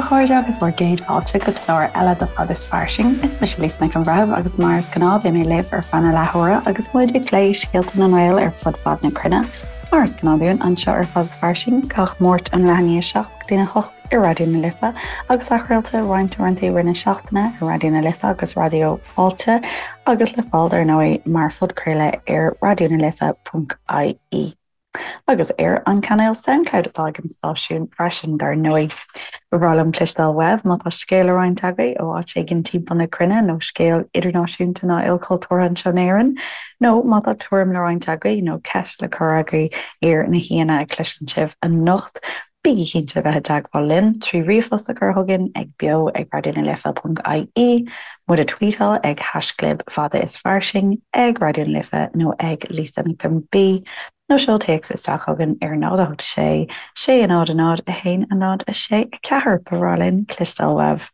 chairde agus bhur gcéad fáilte go clár eile de Fad is Fairsing. Is mise Lisa Nic an Bhreithimh agus mar is gnáth beidh mé libh ar feadh na leathuaire agus muid ag plé scéalta na nGael ar fud fad na cruinne. Mar is gnáth dúinn anseo ar Fad is Fairsing gach Máirt ón leath i ndiaidh 7 go dtí a 8 ar Raidió na Life agus athchraolta roinnt uaireanta i rith na seachtaine ar Raidió na Life agus Raidió Fáilte agus le fáil dar ndóigh mar phodchraoladh ar raidionalife.ie. Agus ar an cainéal Soundcloud atá ag an stáisiún freisin, dar ndóigh. Ba bhreá liom cloisteáil uaibh má tá scéal le roinnt agaibh ó áit éigin timpeall na cruinne nó scéal idirnáisiúnta ná ilchultúrtha anseo in Éirinn, nó má tá tuairim le roinnt agaibh nó ceist le cur agaibh ar na haíonna a chloiseann sibh anocht. Bígí cinnte a bheith i dteagmháil linn trí ríomhphost a chur chugainn ag beo ag raidionalife.ie, muid a tweetáil ag haischlib fada is fairsing, ag Raidió na Life nó ag Lisa Nic an B, nó seol téacs isteach chugainn ar 0 8 6 6 0 0 1 0 6 4. Ba bhreá linn cloisteáil uaibh.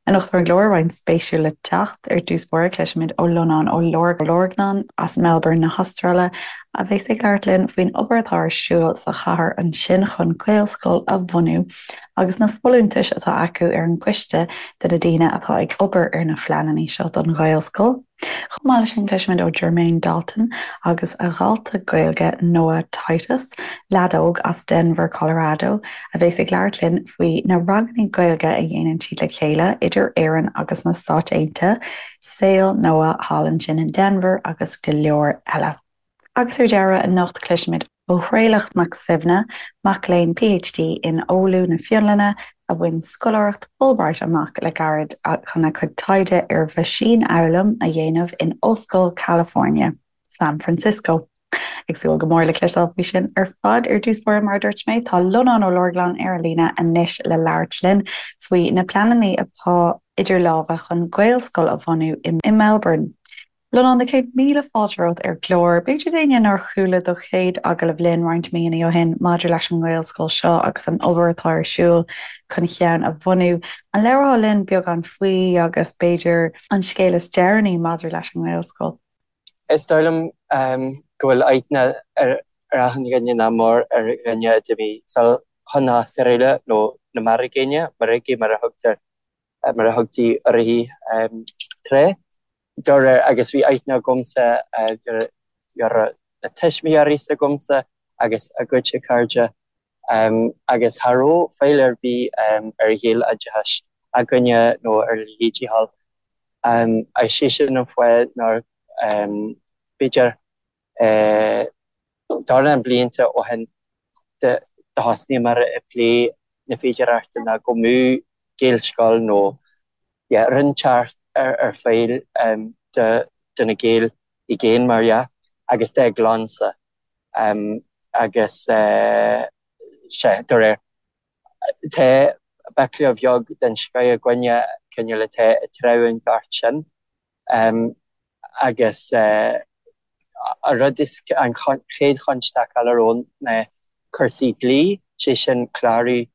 Anocht ar an gclár, roinnt spéisiúil le teacht. Ar dtús báire, cloisfimid ó Lonán Ó Lorgnáin as Melbourne na hAstráile, a bheas ag labhairt linn faoin obair atá ar siúl sa chathair ansin chun Gaelscoil a bhunú agus na folúntais atá acu ar an gcoiste de na daoine atá ag obair ar na phleananna seo don Ghaelscoil. Chomh maith leis sin, cloisfimid ó Jermaine Dalton agus a dhalta Gaeilge Noah Titus, leaid óg as Denver, Colorado, a bheas ag labhairt linn faoi na ranganna Gaeilge a dhéanann siad le chéile idir Éirinn agus na Stáit Aontaithe, saol Noah thall ansin in Denver agus go leor eile. Agus ar deireadh, anocht cloisfimid ó Thraolach Mac Suibhne, mac léinn PhD in Oulu na Fionlainne, a bhain scoláireacht Fulbright amach le gairid chun a chuid taighde ar mheaisínfhoghlaim a dhéanamh in Ollscoil California, San Francisco. Ag súil go mór le cloisteáil faoi sin ar fad. Ar dtús báire, mar a dúirt mé, tá Lonán Ó Lorgnáin ar an líne anois le labhairt linn faoi na pleananna atá idir lámha chun Gaelscoil a bhunú i Melbourne. Lonán, na céad míle fáilte romhat ar an gclár. B'fhéidir d'éinne nár chuala do chéad agallamh linn roinnt míonna ó shin maidir leis an nGaelscoil seo agus an obair atá ar siúl chun ceann a bhunú, an labhrófá linn beagán faoi agus b'fhéidir an scéal is deireanaí maidir leis an nGaelscoil? Is dóigh liom go bhfuil aithne ar achan dhuine nach mór ar dhuine a d'imigh sall chun na hAstráile nó na Mearcaigéine, Meiricigh mar a thugtar mar a thugtaí uirthi tráth. De réir, agus bhí aithne agamsa ar na tuismitheoirí s'agamsa agus a gcuidse cairde agus cha raibh fáil ar bith ar Ghaeloideachas againne nó ar a leithéidí thall. Agus sé sin an fáth nár, b'fhéidir, dornán blianta ó shin do thosnaíomar ag plé na féidearthachta ná go mbeadh Gaelscoil nó yeah rud inteacht ar fáil do na Gaeil i gcéin mar dhea agus dá gclannsa agus sea de réir tá baicle bheag den scoith againne cineál atá ag treabhadh an ghort sin. Agus an rud is, an chéad chonstaic eile romhainn ná cúrsaí dlí, sé sin clárú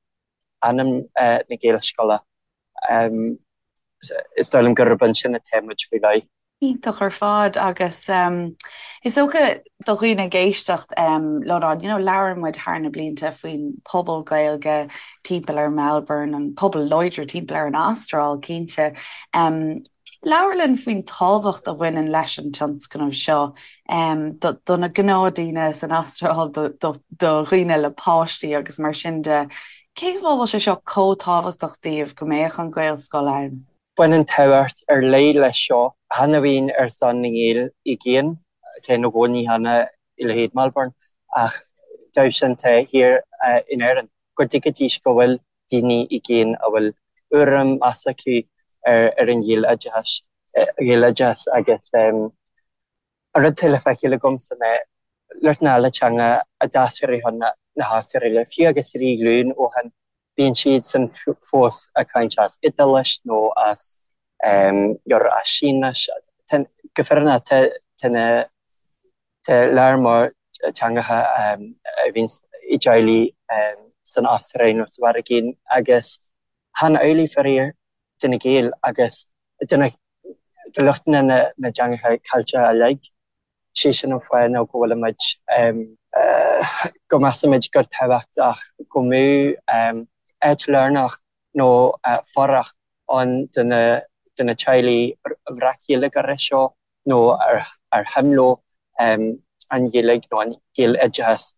ainm na Gaelscoile. Is dóigh liom gurb ansin atá muid faoi láthair. Iontach ar fad agus is dócha do dhaoine ag éisteacht, Lonán, you know, labhair muid thar na blianta faoin pobal Gaeilge timpeall ar Melbourne, an pobal láidir timpeall ar an Astráil, cinnte. Labhair linn faoin tábhacht a bhaineann leis an tionscnamh seo do na gnáthdaoine san Astráil, do dhaoine le páistí agus mar sin de. Cén fáth a bhfuil sé seo chomh tábhachtach daoibh go mbeadh an Ghaelscoil ann? Baineann tábhacht ar leith leis seo, chan amháin ar son na nGael i gcéin, atá ina gcónaí cheana i leithéid Melbourne, ach dóibh sin atá thiar in Éirinn, go dtuigfidís go bhfuil daoine i gcéin a bhfuil urraim meas acu ar an Ghaeloideachas Ghaeloideachas agus an rud atá le feiceáil agamsa ná lucht na teanga a d'aistrigh chun na hAstráile, fiú agus 3 ghlúin ó shin, bíonn siadsan fós ag caint as Iodáilis nó as as Sínis. Go fírinneach tá na Tá lear mór teangacha a bhíonn i dteaghlaigh san Astráil nó sa Mheiriceá agus chan amhlaidh faraor do na Gaeil agus do lucht na dteangacha Ceilteacha uilig. Sé sin an fáth nó go bhfuilimid, go measaimid gur tábhachtach go mbeadh áit lárnach. nó fuireach ann do na teaghlaigh bhreac-Ghaeilgeoirí seo nó ar shuim leo an Ghaeilge nó an Gaeloideachas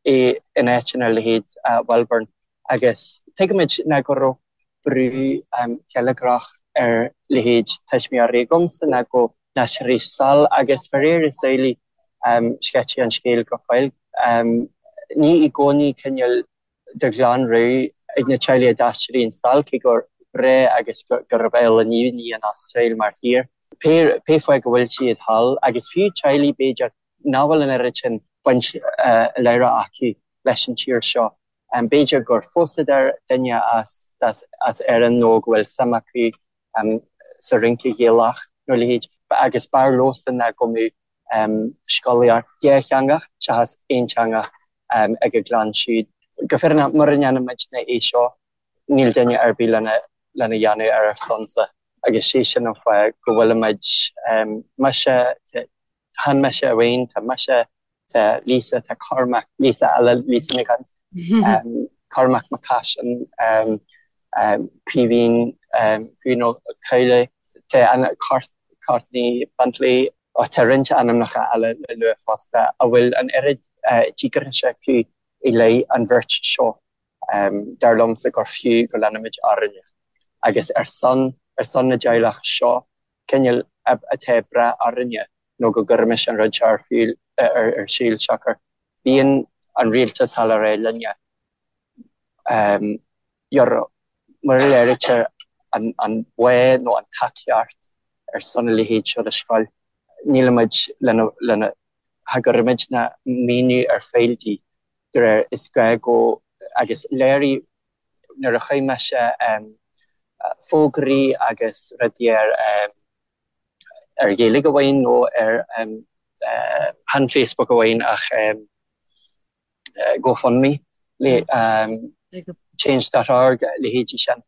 in áiteanna ar leithéid Melbourne agus tuigimid ná go raibh brú geilleagrach ar leithéid tuismitheoirí agamsa ná go n-aistreoidís sall agus faraor is amhlaidh sceití an scéal go fóill. Ní i gcónaí cineál de ghlanrogha ag na teaghlaigh a d'aistríonn sall, cé gur breá agus gurb álainn í an Astráil mar thír. Pé fáth go bhfuil siad thall, agus fiú teaghlaigh, b'fhéidir, nach bhfuil an oiread sin baint láithreach acu leis an tír seo, b'fhéidir gur phósadar duine as Éirinn nó go bhfuil suim acu sa rince Ghaelach nó a leithéid, agus b'fhearr leosan ná go mbeadh scolaíocht dhátheangach seachas aonteangach ag a gclann siúd. Go fírinneach, mura ndéanaimidne é seo, níl duine ar bith lena dhéanamh ar ár sonsa agus sé sin an fáth go bhfuilimid, mise, chan mise amháin, tá mise, tá Lisa, tá Cormac, Lisa eile, Lisa Nic an, Cormac Mac Caisin, Caoimhín, Caoimhín Ó Cadhla, tá an Courtney Bentley, tá roinnt ainmneacha eile le lua fosta a bhfuil an oiread díograise acu i leith an bhirt seo. Dar liomsa gur fiú go leanfaimid orainne agus ar son ar son na dteaghlach seo cineál atá ag brath orainne nó go gcuirimis an rud seo ar fiú ar siúl siocair bíonn an rialtas thall ag rá linne mura léirítear an bá nó an tacaíocht ar son a leithéid seo de scoil, nílimid lena, cha gcuirimidne maoiniú ar fáil di, de réir is gá go, agus léirigh nuair a chuir mise fógraí agus rudaí ar ar Ghaeilge amháin nó ar chan Facebook amháin ach GoFundMe, Change dot org, leithéidí sin,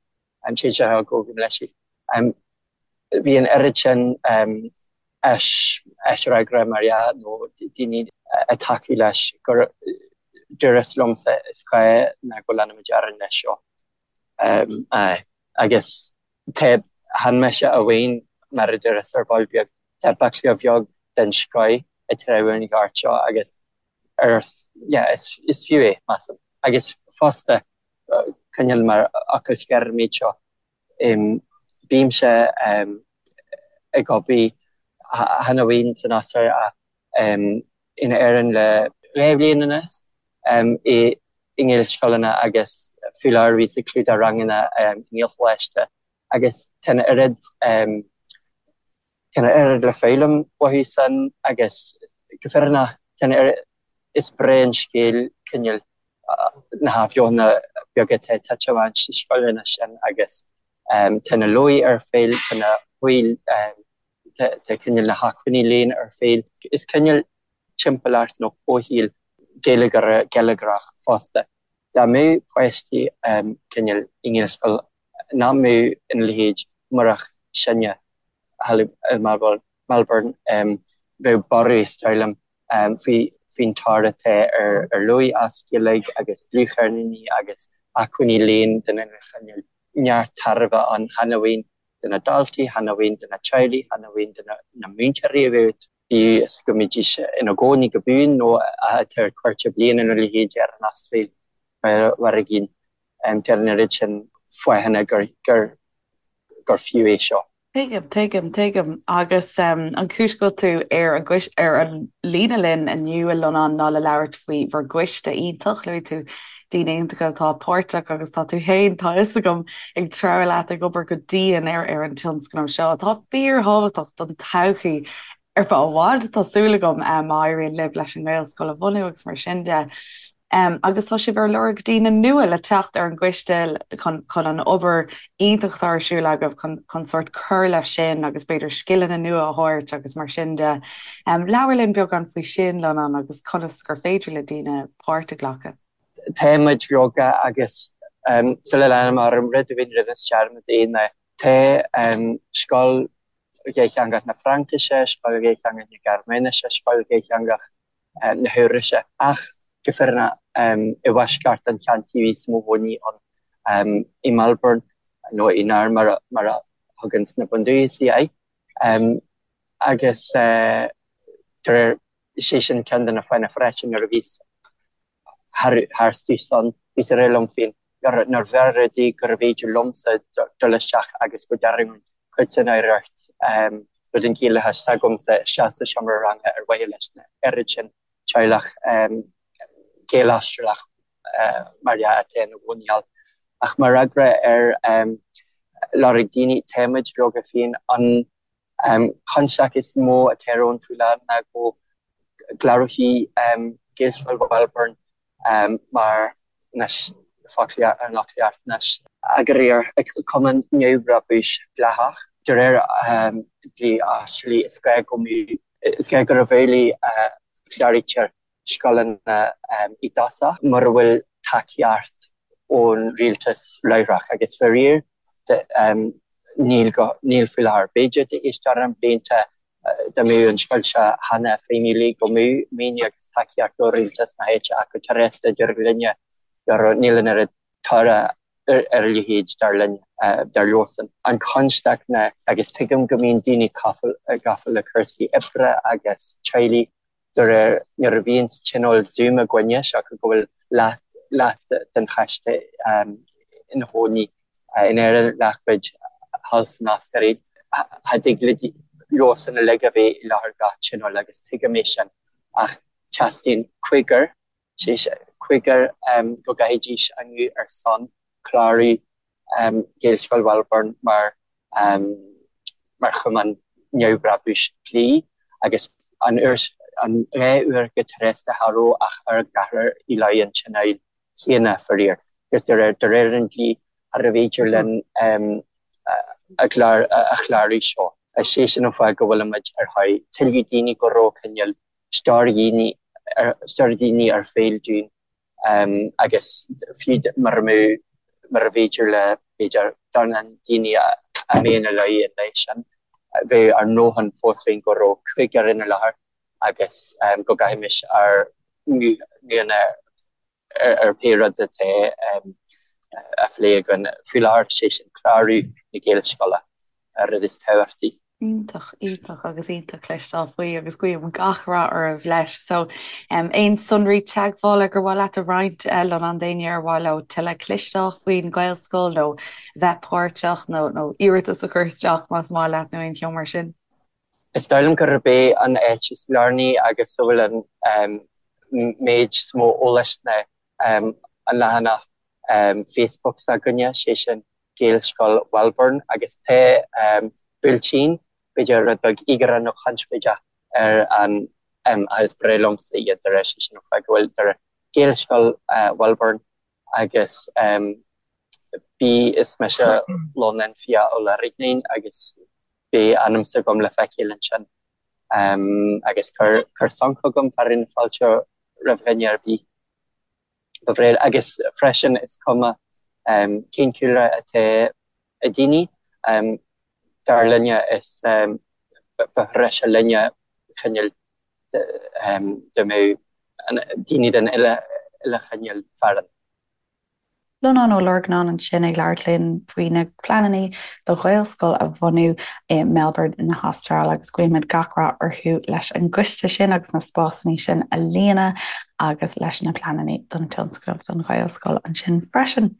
Change dot org gabh mo leithscéal. Bhí an oiread sin aisfhreagra mar dhea nó daoine ag tacú leis gur dúras liomsa is gá ná go leanfaimid orainn leis seo. Aye. Agus tá, chan mise amháin, mar a dúras ar ball beag, tá baicle bheag den scoith ag treabhadh an ghoirt seo agus ar, yeah, is, is fiú é, measaim. Agus fosta, cineál mar fhocal scoir an méid seo, bímse ag obair chan amháin san Astráil ach in Éirinn le 2 bhliain anuas i nGaelscoileanna agus faoi láthair bhíos ag clúdach ranganna i nGaelcholáiste agus tá an oiread tá an oiread le foghlaim uathu san agus go fírinneach tá an oiread is breá an scéal cineál na hathbheochana beaga atá ag titim amach sna scoileanna sin agus tá na leabhair ar fáil, tá na tá cineál na hacmhainní léinn ar fáil. Is cineál timpeallacht nó comhshaol geilleagrach geilleagrach fosta. Dá mbeadh páistí cineál i nGaelscoil nach mbeadh ina leithéid murach sinne thall i Melbourne, bheadh borradh is dóigh liom faoin tóir atá ar leabhair as Gaeilge agus dlúthcheirníní agus acmhainní léinn den uile chineál. Neart tairbhe ann chan amháin do na daltaí, chan amháin do na teaghlaigh, chan amháin do na múinteoirí a bheadh, bíodh is go mbídís ina gcónaí go buan nó atá ar cuairt bliana nó a leithéid ar an Astráil mar a gcinn. Tá an oiread sin fáthanna gur fiú é seo. Tuigim, tuigim, tuigim. Agus an chúis go bhfuil tú ar an gcois, ar an líne linn inniu, a Lonán, ná le labhairt faoi bhur gcoiste iontach. Luaigh tú daoine iontacha atá páirteach agus tá tú féin, tá a fhios agam, ag treabhadh leat, ag obair go dian ar ar an tionscnamh seo atá fíorthábhachtach don todhchaí ar feadh i bhfad, tá súil agam, má éiríonn libh leis an nGaelscoil a bhunú agus mar sin de. Agus tá sibh ar lorg daoine nua le teacht ar an gcoiste chun chun an obair iontach atá ar siúl agaibh chun chun sórt cur leis sin agus b'fhéidir scileanna nua a thabhairt agus mar sin de. Labhair linn beagán faoi sin, Lonán, agus conas gur féidir le daoine páirt a ghlacadh. Táimid leoga agus sula leanaim orm, rud amháin rinneas dearmad é ná tá scoil dhátheangach na Fraincise, scoil dhátheangach na Gearmáinise, scoil dhátheangach na hEabhraise. Ach go fírinneach, i bhfoisceacht an cheantair bhíos i mo chónaí ann. i Melbourne, nó i Naarm mar a thugann na bundúchasaigh air. Agus de réir, sé sin ceann de na fáthanna freisin nuair a bhíos tharstu san, bhíos ag rá liom féin nár bhfearr rudaí gurbh fhéidir liomsa dul isteach agus go dtarraingeoinn cuid den oidhreacht nó den Ghaelachas s'agamsa isteach sa seomra ranga ar mhaithe leis na oiread sin teaghlach Gael-Astrálach mar dhea atá ina gcónaí thall. Ach mar fhreagra ar lorg daoine, táimid leoga féin an Constaic is mó atá romhainn faoi láthair ná go gclárófaí Gaelscoil Mhelbourne mar anois an fhoclaíocht anois. Eagraíocht, cumann neamhbhrabúis dleathach. De réir dlí Astrálaigh is gá go mbeadh, is gá gurb amhlaidh a chláraítear scoileanna i dtosach mura bhfuil tacaíocht ón rialtas láithreach agus faraor níl go, níl faoi láthair. B'fhéidir tar éis dornán blianta dá mbeadh an scoil seo cheana feidhmiúil go mbeadh maoiniú agus tacaíocht ó rialtas na háite ach go tréasta deirtear linne go níl an oiread toradh ar a leithéid dar linn, dar leosan. An chonstaic ná, agus tuigim go mbíonn daoine gafa le cúrsaí oibre agus teaghlaigh, De réir nuair a bhíonns tionól Zoom againne, siocair go bhfuil leath, leath den choiste ina chónaí in Éirinn, leathchuid thall san Astráil, cha dtig le leosan uilig a bheith i láthair gach tionól agus tuigim é sin ach teastaíonn cúigear sé cúigear go gcaithfidís a nguth ar son clárú Ghaelscoil Mhelbourne mar mar chumann neamhbhrabúis dlí agus an uair an dhá uair go tréasta cha raibh ach ár gceathrar i láthair an tionóil chéanna faraor agus de réir de réir an dlí charbh fhéidir linn a gclár a chlárú seo. Is é sin an fáth go bhfuilimid ar thóir tuilleadh daoine go raibh cineál stiúir dhaoine stiúir daoine ar fáil dúinn agus fiú mura mbeadh mura bhféidir le b'fhéidir dornán daoine a mbeadh ina láthair an lá sin bheadh ár ndóthain fós féin go raibh cúigear ina láthair agus go gcaithfimis ár nguthanna ar pé rud atá á phlé againn faoi láthair, sé sin clárú na Gaelscoile, an rud is tábhachtaí. Iontach, iontach agus iontach cloisteáil faoi agus guím gach rath oraibh leis. So, aon sonraí teagmhála gur mhaith leat a roinnt Lonán d'éinne ar mhaith leo tuilleadh cloisteáil faoin Ghaelscoil nó bheith páirteach nó nó iarratas a chur isteach más maith leat nó aon cheo mar sin? Is dóigh liom gurb é an áit is lárnaí agus a bhfuil an méid is mó eolais ná an leathanach Facebook s'againne, sé sin Gaelscoil Mhelbourne agus tá buailtín, b'fhéidir rud beag íogaire nó conspóideach ar an ach is breá liomsa iad de réir sé sin an fáth go bhfuil de réir Gaelscoil Mhelbourne agus bí is mise Lonán Fiach Ó Lorgnáin agus beidh ainm s'agam le feiceáil ansin agus cuir cuir sonc chugam fearadh na fáilte roimh dhuine ar bith. Ba bhréa agus freisin is cuma cén cúlra atá ag daoine, dar linne is ba threise linne cineál dá mbeadh daoine den uile chineál farainn. Lonán Ó Lorgnáin ansin ag labhairt linn faoi na pleananna do Ghaelscoil a bhunú i Melbourne na hAstráile agus guímid gach rath orthu leis an gcoiste sin agus na spásanna sin a líonadh agus leis na pleananna don tionscnamh don Ghaelscoil ansin freisin.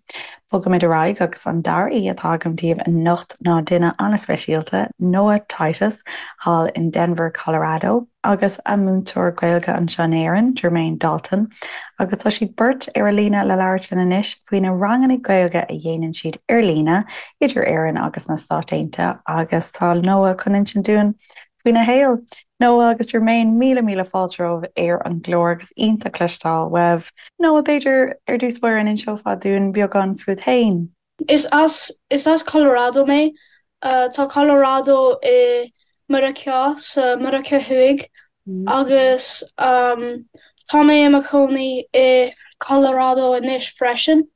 Bogaimid ar aghaidh agus an dara aoi atá agam daoibh anocht ná duine an-speisialta, Noah Titus, thall in Denver, Colorado. agus a múinteoir Gaeilge anseo in Éirinn, Jermaine Dalton, agus tá siad beirt ar an líne le labhairt linn anois faoi na ranganna Gaeilge a dhéanann siad ar líne idir Éirinn agus na Stáit Aontaithe agus tá Noah chun insint dúinn faoina shaol. Noah agus Jermaine, míle míle fáilte romhaibh ar an gclár agus iontach cloisteáil uaibh. Noah, b'fhéidir ar dtús báire an inseofá dúinn beagán fút féin? Is as is as Colorado mé. Tá Colorado i Meiriceá, sa Meiriceá Thuaidh, agus tá mé i mo chónaí i Colorado anois freisin.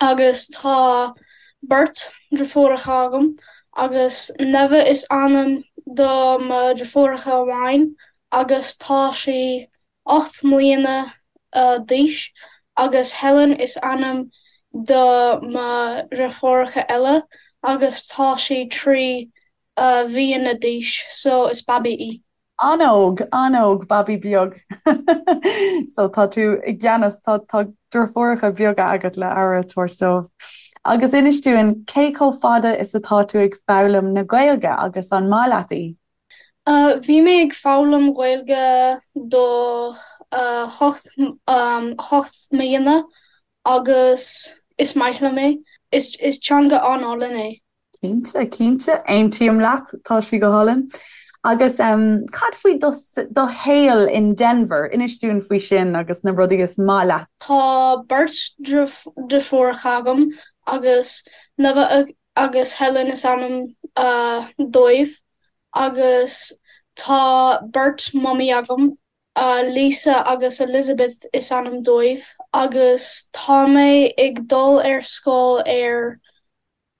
Agus tá beirt deirfiúracha agam, agus Neve is ainm do mo deirfiúracha amháin agus tá sí 8 mbliana d'aois agus Helen is ainm. do mo dheirfiúracha eile agus tá sí 3 mhíonna d'aois so is babaí í. An-óg, an-óg, babaí beag. So tá tú i gceannas, tá tá deirfiúracha beaga agat le aire a thabhairt dóibh. Agus inis dúinn, cé chomh fada is atá tú ag foghlaim na Gaeilge agus an maith leat í? Bhí mé ag foghlaim Gaeilge do 8 8 mbliana agus is maith liom é. Is teanga an-álainn é. Cinnte, cinnte, aontaím leat, tá sí go hálainn. Agus cad faoi do do shaol in Denver? Inis dúinn faoi sin agus na rudaí is maith leat. Tá beirt deirfiúracha agam agus Nova agus Helen is ainm dóibh agus tá beirt mamaí agam. Lisa agus Elizabeth is ainm dóibh agus tá mé ag dul ar scoil ar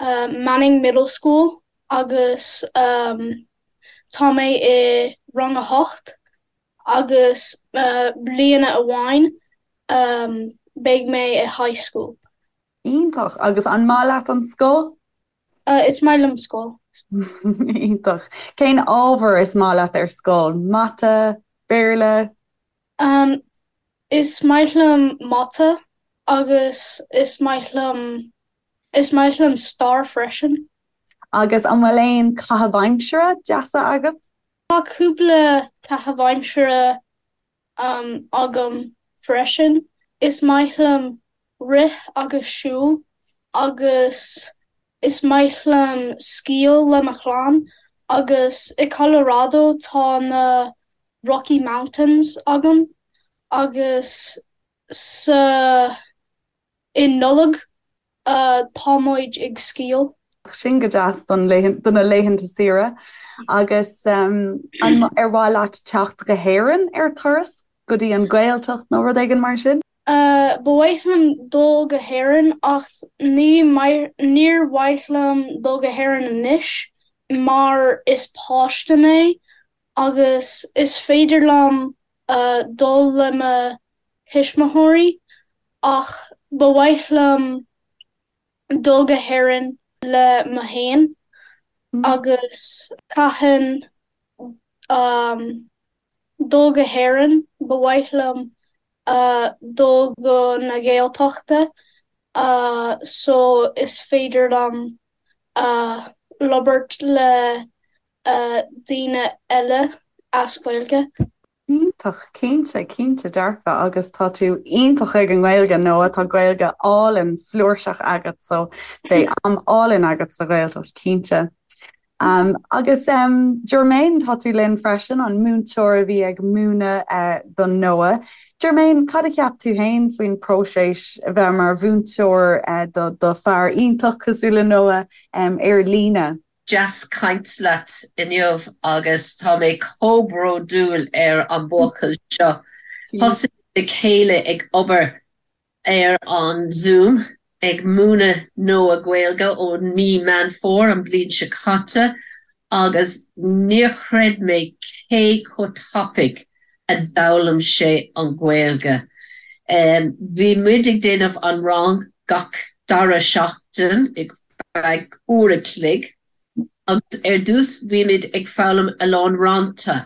Manning Middle School agus tá mé i rang a hocht agus bliana amháin beidh mé i high school. Iontach! Agus an maith leat an scoil? Is maith liom scoil. Iontach. Cén ábhar is maith leat ar scoil? Mata? Béarla? Is maith liom mata agus is maith liom is maith liom stair freisin. Agus an bhfuil aon caitheamh aimsire deasa agat? Tá cúpla caitheamh aimsire agam freisin. Is maith liom rith agus siúl agus is maith liom sciáil le mo chlann agus i Colorado tá na Rocky Mountains agam agus sa i Nollaig tá muid ag sciáil. Sin go deas don do na laethanta saoire. Agus an ar mhaith leat teacht go hÉirinn ar turas, go dtí an Ghaeltacht nó rud éigin mar sin? Ba mhaith liom dul go hÉirinn ach ní níor mhaith liom dul go hÉirinn anois mar is páiste mé agus is féidir liom dul le mo thuismitheoirí ach ba mhaith liom dul go hÉirinn le mo fhéin agus cathain dul go hÉirinn ba mhaith liom dul go na Gaeltachta so is féidir liom labhairt le daoine eile as Gaeilge. Iontach, cinnte, cinnte dearfa agus tá tú iontach ag an nGaeilge Noah, tá Gaeilge álainn flúirseach agat so beidh am álainn agat sa Ghaeltacht cinnte. Um, agus um, Jermaine tá tú linn freisin an múinteoir a bhí ag múineadh uh, do Noah. Jermaine, cad a cheap tú féin faoin próiseas a bheith mar mhúinteoir uh, do, do fear iontach cosúil le Noah um, ar líne? Deas caint leat inniu agus tá mé chomh bródúil ar an buachaill seo. Thosaigh le chéile ag obair ar an Zoom ag múineadh Noah Gaeilge ó mí Meán Fómhair an bliain seo caite agus níor chreid mé cé chomh tapaidh a d'fhoghlaim sé an Ghaeilge. Bhí muid ag déanamh an rang gach dara seachtain ag feadh uair a chloig agus ar dtús bhí muid ag foghlaim a lán rannta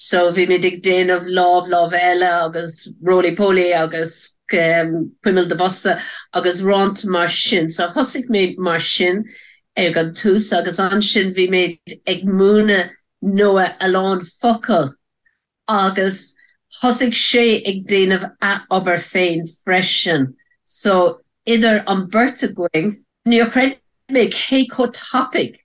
so bhí muid ag déanamh lámh lámh eile agus roly poly agus cuimil do bhosa agus rannta mar sin so thosaigh mé mar sin ag an tús agus ansin bhí mé ag múineadh Noah a lán focal agus thosaigh sé ag déanamh a obair féin freisin so idir an beirt againn níor chreid mé cé chomh tapaidh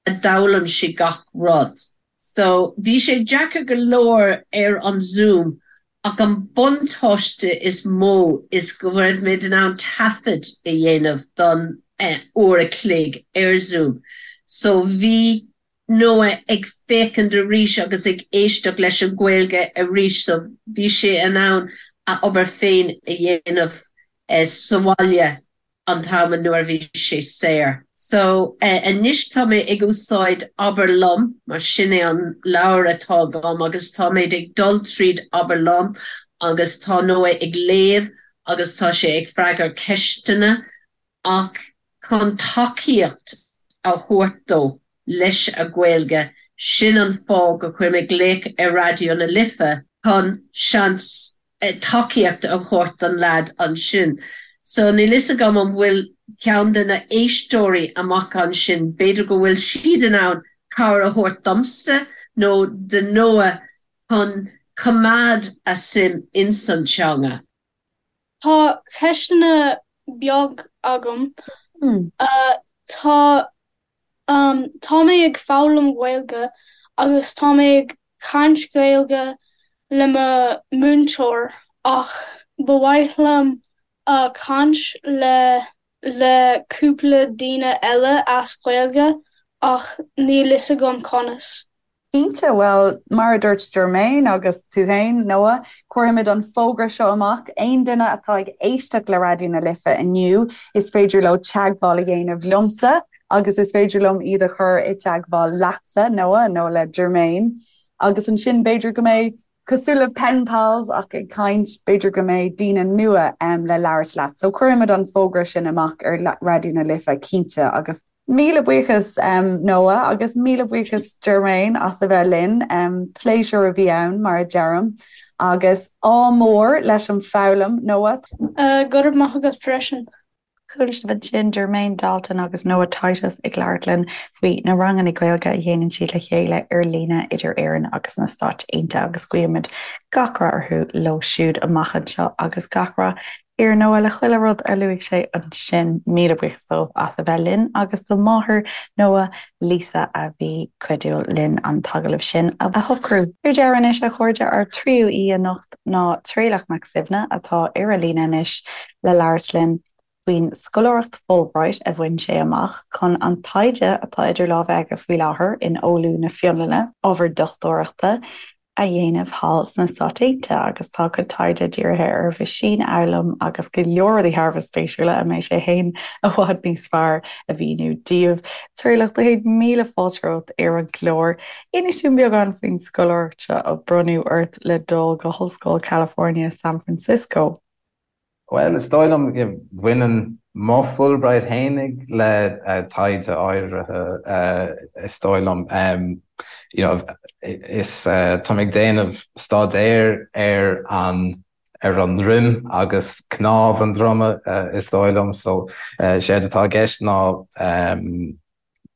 a d'fhoghlaim sé gach rud. So bhí sé deacair go leor ar an Zoom ach an buntáiste is mó is go raibh muid in ann taifead a dhéanamh don uair a chloig ar Zoom so bhí Noah ag féachaint arís agus ag éisteacht leis an Ghaeilge arís so bhí sé in ann a obair féin a dhéanamh sa bhaile an t-am nuair a bhí sé saor. So anois tá mé ag úsáid Abair Liom mar sin é an leabhar atá agam agus tá mé ag dul tríd Abair Liom agus tá Noah ag léamh agus tá sé ag freagairt ceisteanna. Ach chun tacaíocht a thabhairt dó leis a Ghaeilge, sin an fáth go chuir mé glaoch ar Raidió na Life chun seans tacaíocht a thabhairt don leaid ansin. So níl fhios agam an bhfuil ceann de na éisteoirí amach ansin, b'fhéidir go bhfuil siad in ann cabhair a thabhairt domsa nó do Noah chun coimeád a suim ins an teanga. Tá ceisteanna beag agam. Tá tá mé ag foghlaim Gaeilge agus tá mé ag caint Gaeilge le mo múinteoir ach ba mhaith liom caint le le cúpla daoine eile as Gaeilge ach níl fhios agam conas. Cinnte, bhuel, mar a dúirt Jermaine agus tú féin, Noah, cuirfimid an fógra seo amach, aon duine atá ag éisteacht le Raidió na Life inniu, is féidir leo teagmháil a dhéanamh liomsa agus is féidir liom iad a chur i dteagmháil leatsa, Noah, nó le Jermaine. Agus ansin b'fhéidir go mbeidh, cosúil le pen pals ach ag caint, b'fhéidir go mbeidh daoine nua le labhairt leat. So cuirfimid an fógra sin amach ar Raidió na Life cinnte agus. Míle buíochas Noah agus míle buíochas Jermaine as a bheith linn. Pléisiúr a bhí ann mar a deirim. Agus ádh mór leis an foghlaim, Noah. Go raibh maith agat freisin. Chuala sibh ansin Jermaine Dalton agus Noah Titus ag labhairt linn faoi na ranganna Gaeilge a dhéanann siad le chéile ar líne idir Éirinn agus na Stáit Aontaithe agus guímid gach rath orthu leo siúd amach anseo agus gach rath ar Noah le chuile rud a luaigh sé ansin. Míle buíochas dóibh as a bheith linn agus do mháthair Noah, Lisa, a bhí cuidiúil linn an t-agallamh sin a shocrú. Ar deireadh anois, a chairde, ár dtríú aoi anocht ná Traolach Mac Suibhne atá ar an líne anois le labhairt linn faoin scoláireacht Fulbright a bhain sé amach chun an taighde atá idir lámha aige faoi láthair in Oulu na Fionlainne, ábhar dochtúireachta, a dhéanamh thall sna Stáit Aontaithe agus tá a chuid taighde dírithe ar mheaisínfhoghlaim agus go leor rudaí thar a bheith spéisiúla a mbeidh sé féin i bhfad níos fearr a mhíniú daoibh. Traolach, do chéad míle fáilte romhat ar an gclár. Inis dúinn beagán faoin scoláireacht seo a bronnadh ort le dul go hOllscoil California, San Francisco. Bhuel, is dóigh liom go bhaineann mo Fulbright fhéinig le taighde áirithe, is dóigh liom. You know, is tá mé ag déanamh staidéir ar an ar an ndroim agus cnámh an droma, is dóigh liom. So, séard atá i gceist ná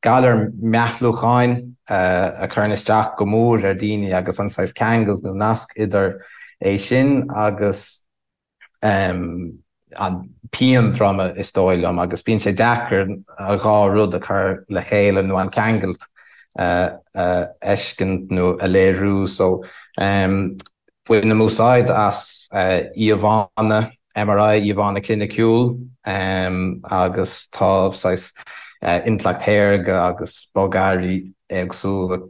galar meathlúcháin a chuireann isteach go mór ar daoine agus an saghas ceangal nó nasc idir é sin agus an pian droma is dóigh liom agus bíonn sé deacair an dhá rud a chur le chéile nó an ceangal a fheiscint nó a léiriú so bainim úsáid as íomhánna MRI, íomhánna cliniciúil agus tá saghas intleacht shaorga agus bogearraí éagsúla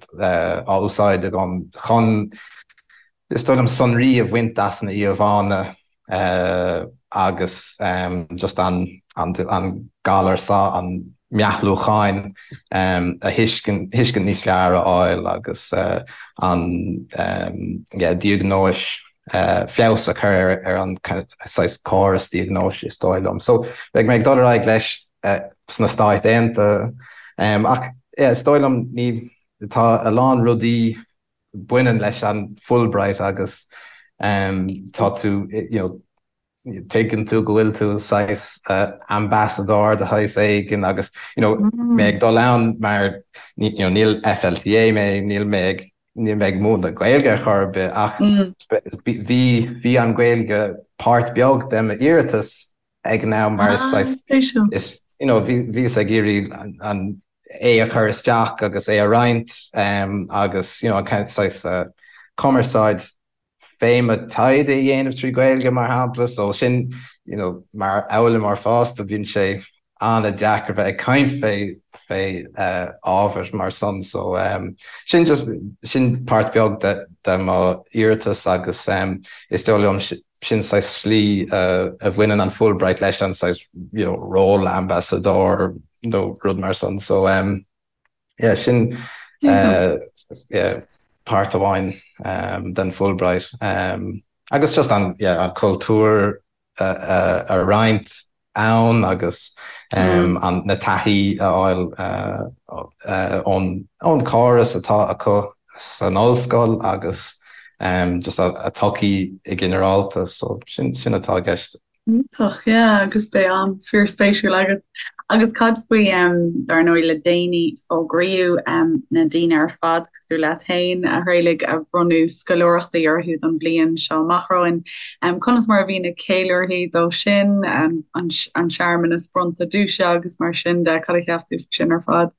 á úsáid agam chun Is dóigh liom sonraí a bhaint as na íomhánna agus just an galar seo, an meathlúcháin a thuiscint, thuiscint níos fearr a fháil agus an yeah diagnóis, feabhas a chur ar an saghas córas diagnóis is dóigh liom. So beidh mé ag dul ar aghaidh leis sna Stáit Aontaithe ach yeah is dóigh liom ní, tá a lán rudaí baineann leis an Fulbright agus tá tú, you know, tuigeann tú go bhfuil tú saghas ambasadóir de shaghas éigin agus, you know, mé ag dul ann mar, you know, níl FLTA mé, níl mé ag, níl mé ag múineadh Gaeilge ar chor ar bith ach bhí, bhí an Ghaeilge páirt beag de m'iarratas ag an am mar is saghas, is, you know, bhí, bhíos ag iarraidh an, é a chur isteach agus é a roinnt agus, you know, an saghas cumarsáid fé mo taighde a dhéanamh trí Ghaeilge mar shampla. So sin, you know, mar fhoghlaimeoir fásta bíonn sé an-deacair bheith ag caint fé fé ábhar mar san. So sin just, sin páirt beag de de mo iarratas agus is dóigh liom sin saghas slí a bhaineann an Fulbright leis an saghas you know ról ambasadóir nó rud mar san so um, yeah, sin uh, yeah, páirt amháin um, den Fulbright um, agus just an, yeah, an cultúr a, a, a roinnt. ann agus na taithí a fháil ón córas atá acu san ollscoil agus just a tsochaí i ginearálta. So sin atá i gceist. Iontach, yeah, agus beidh am fíorspéisiúil agat. Agus cad faoi, dar ndóigh, le déanaí fógraíodh na daoine ar fad, cosúil leat féin, a Thraolaigh, a bronnadh scoláireachtaí orthu don bhliain seo amach romhainn. Conas mar a bhí na ceiliúrthaí dó sin, an searmanas bronnta duaise agus mar sin de, cad a cheap tú faoi sin ar fad?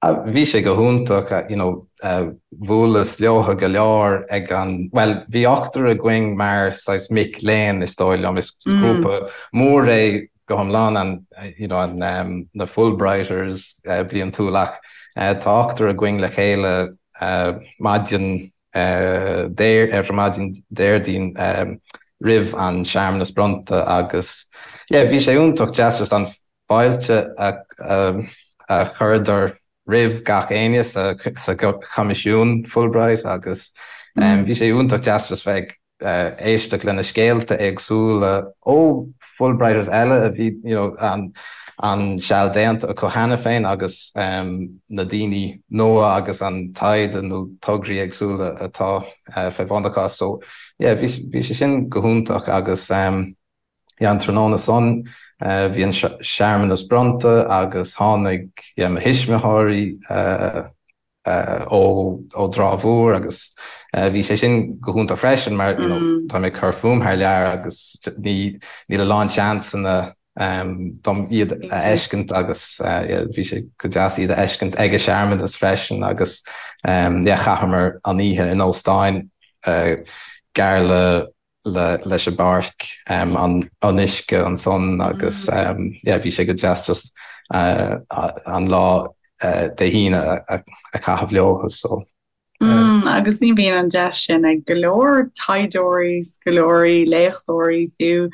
Bhí sé go hiontach, you know, bhuaileas leotha go leor ag an, bhuel, bhí ochtar againn mar saghas mic léinn is dóigh liom, is grúpa mór é go hiomlán an, you know, an, na Fulbrighters bliantúil ach tá ochtar againn le chéile maidin ar maidin Déardaoin roimh an searmanas bronnta agus yeah, bhí sé iontach deas just an fáilte a chuireadar roimh gach éinne sa Choimisiún Fulbright agus bhí sé iontach deas just bheith ag éisteacht le na scéalta éagsúla ó Fulbrighters eile a bhí you know an seal déanta acu cheana féin agus na daoine nua agus an taighde nó tograí éagsúla atá fé bhun acu. So yeah bhí sé sin go hiontach agus Yeah, an tráthnóna san bhí an searmanas bronnta agus tháinig yeah mo thuismitheoirí ó ó dTrá Mhór agus bhí sé sin go hiontach freisin mar you know tá mé ag cur fúm thar lear agus ní níl a lán seansanna dom iad a fheiscint agus yeah bhí sé go deas iad a fheiscint ag an searmanas freisin agus yeah chaitheamar an oíche in óstáin gar le leis an bpáirc, an uisce ansan agus yeah bhí sé go deas just an lá Dé hAoine a chaitheamh leo so. Mm, agus ní bhíonn an deis sin ag go leor taighdeoirí, scoláirí, léachtóirí fiú,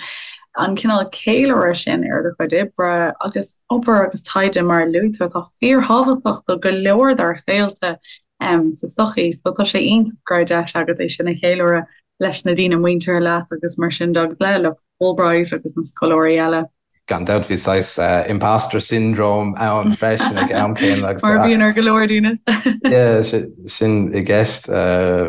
an cineál ceiliúradh sin ar do chuid oibre agus obair agus taighde mar a luaigh tú atá fíorthábhachtach do go leor dár saolta sa tsochaí. So tá sé iontach go raibh deis agat é sin a cheiliúradh leis na daoine muinteartha leat agus mar sin de agus le lucht Fulbright agus na scoláirí eile. Gan dabht bhí saghas imposter syndrome ann freisin ag am céanna agus. Mar a bhíonn ar go leor daoine. Yeah, sin i gceist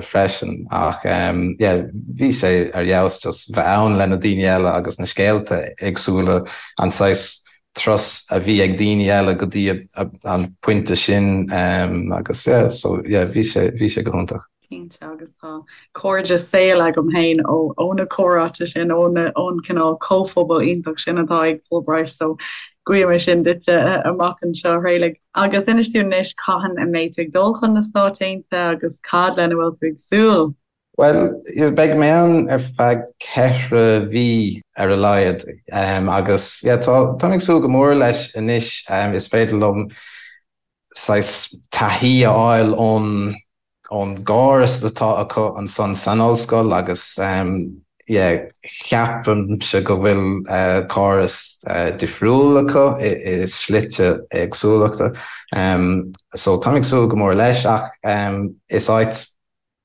freisin ach yeah bhí sé ar fheabhas just bheith ann le na daoine eile agus na scéalta éagsúla, an saghas turas a bhí ag daoine eile go dtí an pointe sin agus yeah so yeah bhí sé bhí sé go hiontach. Cinnte, agus tá cairde saoil agam féin ó ó na comhráite sin, ó na ón cineál comhphobal iontach sin atá ag Fulbright, so guím é sin duitse amach anseo, a Thraolaigh. Agus inis dúinn anois cathain a mbeidh tú ag dul chun na Stáit Aontaithe agus cad lena bhfuil tú ag súil? Bhuel, beidh mé ann ar feadh ceithre mhí ar a laghad agus yeah tá tá mé ag súil go mór leis anois, is féidir liom saghas taithí a fháil ón ón gcóras atá acu ansan san ollscoil agus yeah ceapaimse go bhfuil córas difriúil acu i slite éagsúlachta. So táim ag súil go mór leis ach is áit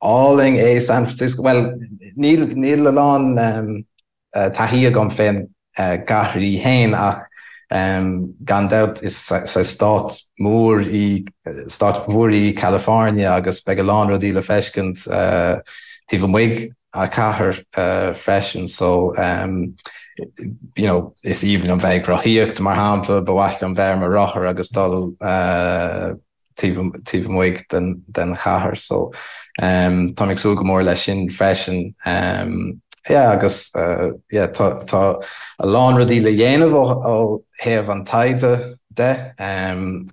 álainn é San Francisco. Bhuel níl níl a lán taithí agam fén gcathair í fhéin ach gan dabht is stát mór í stát mhór í California agus beidh a lán rudaí le feiscint taobh amuigh a cathair freisin so you know is aoibhinn liom bheith ag rothaíocht mar shampla, ba mhaith liom bheith ar mo rothar agus dul taobh amuigh den chathair so táim ag súil go mór leis sin freisin. Yeah agus yeah tá tá a lán rudaí le dhéanamh ó thaobh an taighde de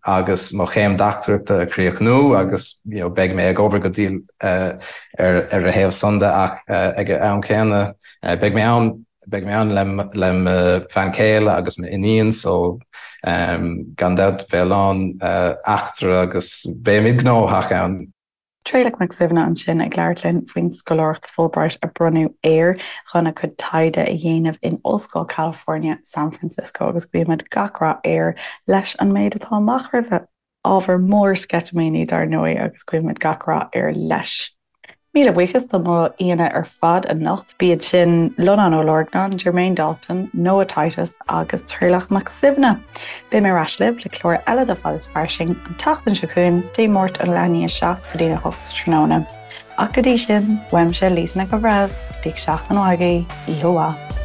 agus mo chéim dochtúireachta a chríochnú agus you know beidh mé ag obair go diail ar ar a thaobh san de ach ag an am céanna beidh mé ann Beidh mé ann le mo bhean chéile agus m'iníon so gan dabht beidh a lán eachtra agus beimid gnóthach ann. Traolach Mac Suibhne ansin ag labhairt linn faoin scoláireacht Fulbright a bronnadh air chun a chuid taighde a dhéanamh in Ollscoil California, San Francisco agus guímid gach rath air leis an méid atá amach roimhe. Ábhar mór sceitimíní dar ndóigh agus guímid gach rath air leis. Míle buíochas do mo aíonna ar fad anocht, b'iad sin Lonán Ó Lorgnáin, Jermaine Dalton, Noah Titus agus Traolach Mac Suibhne. Beidh mé ar ais libh le clár eile de Fad is Fairsing an tseachtain seo chugainn, Dé Máirt ón leath i ndiaidh a 7 go dtí'n 8 sa tráthnóna. Ach go dtí sin, uaimse Lisa Nic an Bhreithimh, bíodh seachtain mhaith agaibh, oíche mhaith.